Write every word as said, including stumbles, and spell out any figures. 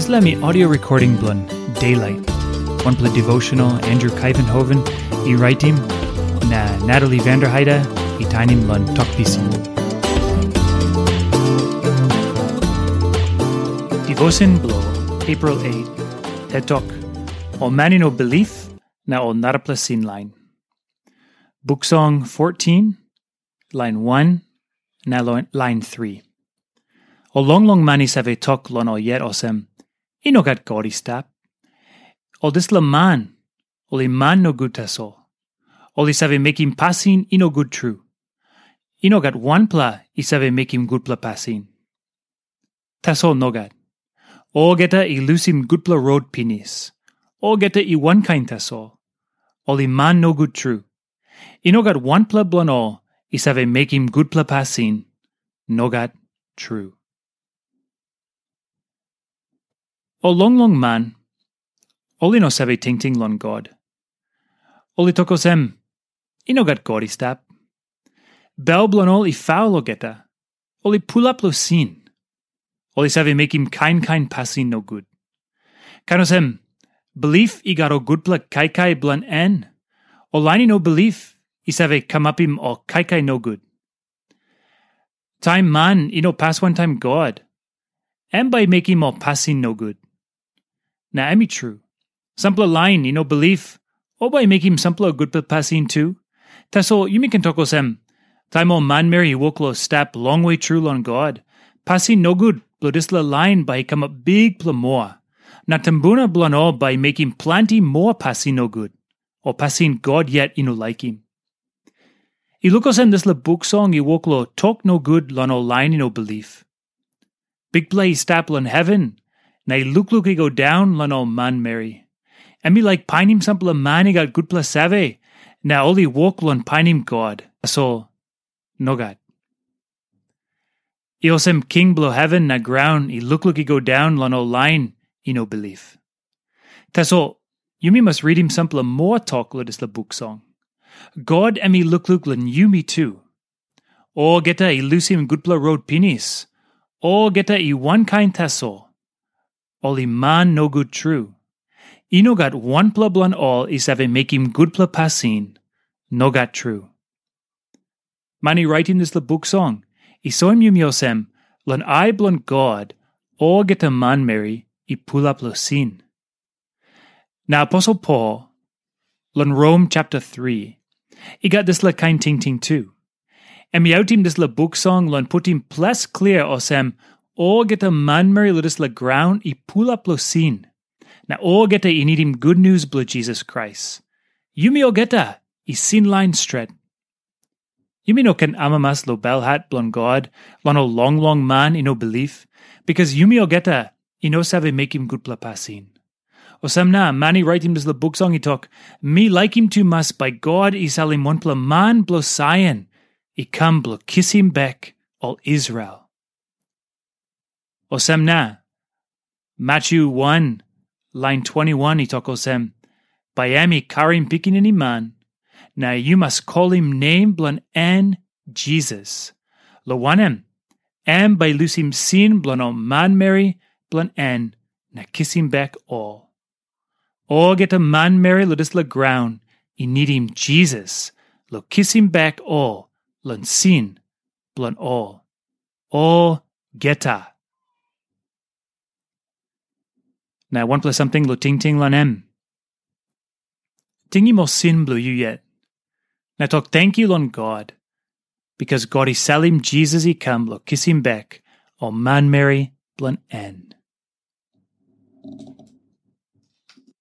Dispela mi audio recording bilong Daylight, wanpela devotional Andrew Kaivenhoven i raitim, na Natalie Vanderheide i tainim long Tok Pisin. Devotion bilong April eight, Tet Tok, ol man i no bilip na ol narapela sin lain. Buk Song fourteen, lain wan na lo- lain three. Ol longlong man i save tok long ol yet olsem, "I no gat God i stap." Ol dispela man, ol i man nogut tasol. Ol i save mekim pasin i no gut tru. I no gat wanpela i save mekim gutpela pasin. Tasol nogat. Olgeta i lusim gutpela rot pinis. Olgeta i wankain tasol. Ol i man nogut tru. I no gat wanpela bilong ol i save mekim gutpela pasin. Nogat tru. Ol longlong man, ol i no save tingting long God. Ol i tok olsem, "I no gat God i stap." Bel bilong ol i faul olgeta. Ol i pulap long sin. Ol i save mekim kain kain pasin nogut. Kain olsem, bilip i gat ol gutpela kaikai bilong en, ol lain i no bilip i save kamapim ol kaikai nogut. Taim man i no pas wantaim God, em bai i mekim ol pasin nogut. Na em i tru, sampela lain i no bilip, ol bai i mekim sampela gutpela pasin tu. Tasol yumi ken tok olsem, taim ol manmeri i wok long stap longwe tru long God, pasin nogut bilong dispela lain bai i kamap bikpela moa, na tumbuna bilong ol bai i mekim planti moa pasin nogut, o pasin God yet i no laikim. I luk olsem dispela buk song i wok long tok nogut long ol lain i no bilip. Bikpela i stap long heven, na i lukluk i go daun long ol manmeri. Em i laik painim sampela man i gat gutpela save, na ol i wok long painim God. Tasol, nogat. I olsem king bilong heven na graun i lukluk i go daun long ol lain i no bilip. Tasol, yumi mas ritim sampela moa tok long dispela buk song. God em i lukluk long yumi tu. Olgeta i lusim gutpela rot pinis. Olgeta i wankain tasol. Ol i man nogut tru. I no gat wanpela bilong ol i save mekim gutpela pasin. Nogat tru. Man i raitim dispela buk song i soim yumi olsem, long ai bilong God, olgeta manmeri i pulap long sin. Na aposel Pol, long Rom chapter three, i gat dispela kain tingting tu. Em i autim dispela buk song long putim ples klia olsem, olgeta manmeri long dispela graun i pulap long sin, na olgeta i nidim gutnius bilong Jisas Krais. Yumi olgeta i sin lain stret. Yumi no ken amamas long belhat bilong God, long ol longlong man i no bilip, bikas yumi olgeta i no save mekim gutpela pasin. Olsem na, man i raitim dispela buk song i tok, mi laikim tumas bai God i salim wanpela man bilong Saion i kam bilong kisim bek ol Israel. Olsem na, Matyu wan, lain twenti wan i tok olsem, bai em i karim pikinini man, na yu mas kolim nem bilong en Jisas, long wanem, em bai i lusim sin bilong ol manmeri bilong en na kisim bek ol. Olgeta manmeri long dispela graun i nidim Jisas long kisim bek ol long sin bilong ol. Olgeta. Na wanpela samting long tingting long em. Tingim ol sin bilong yu yet. Na tok tenkyu long God, bikas God i salim Jisas i kam long kisim bek ol manmeri bilong en.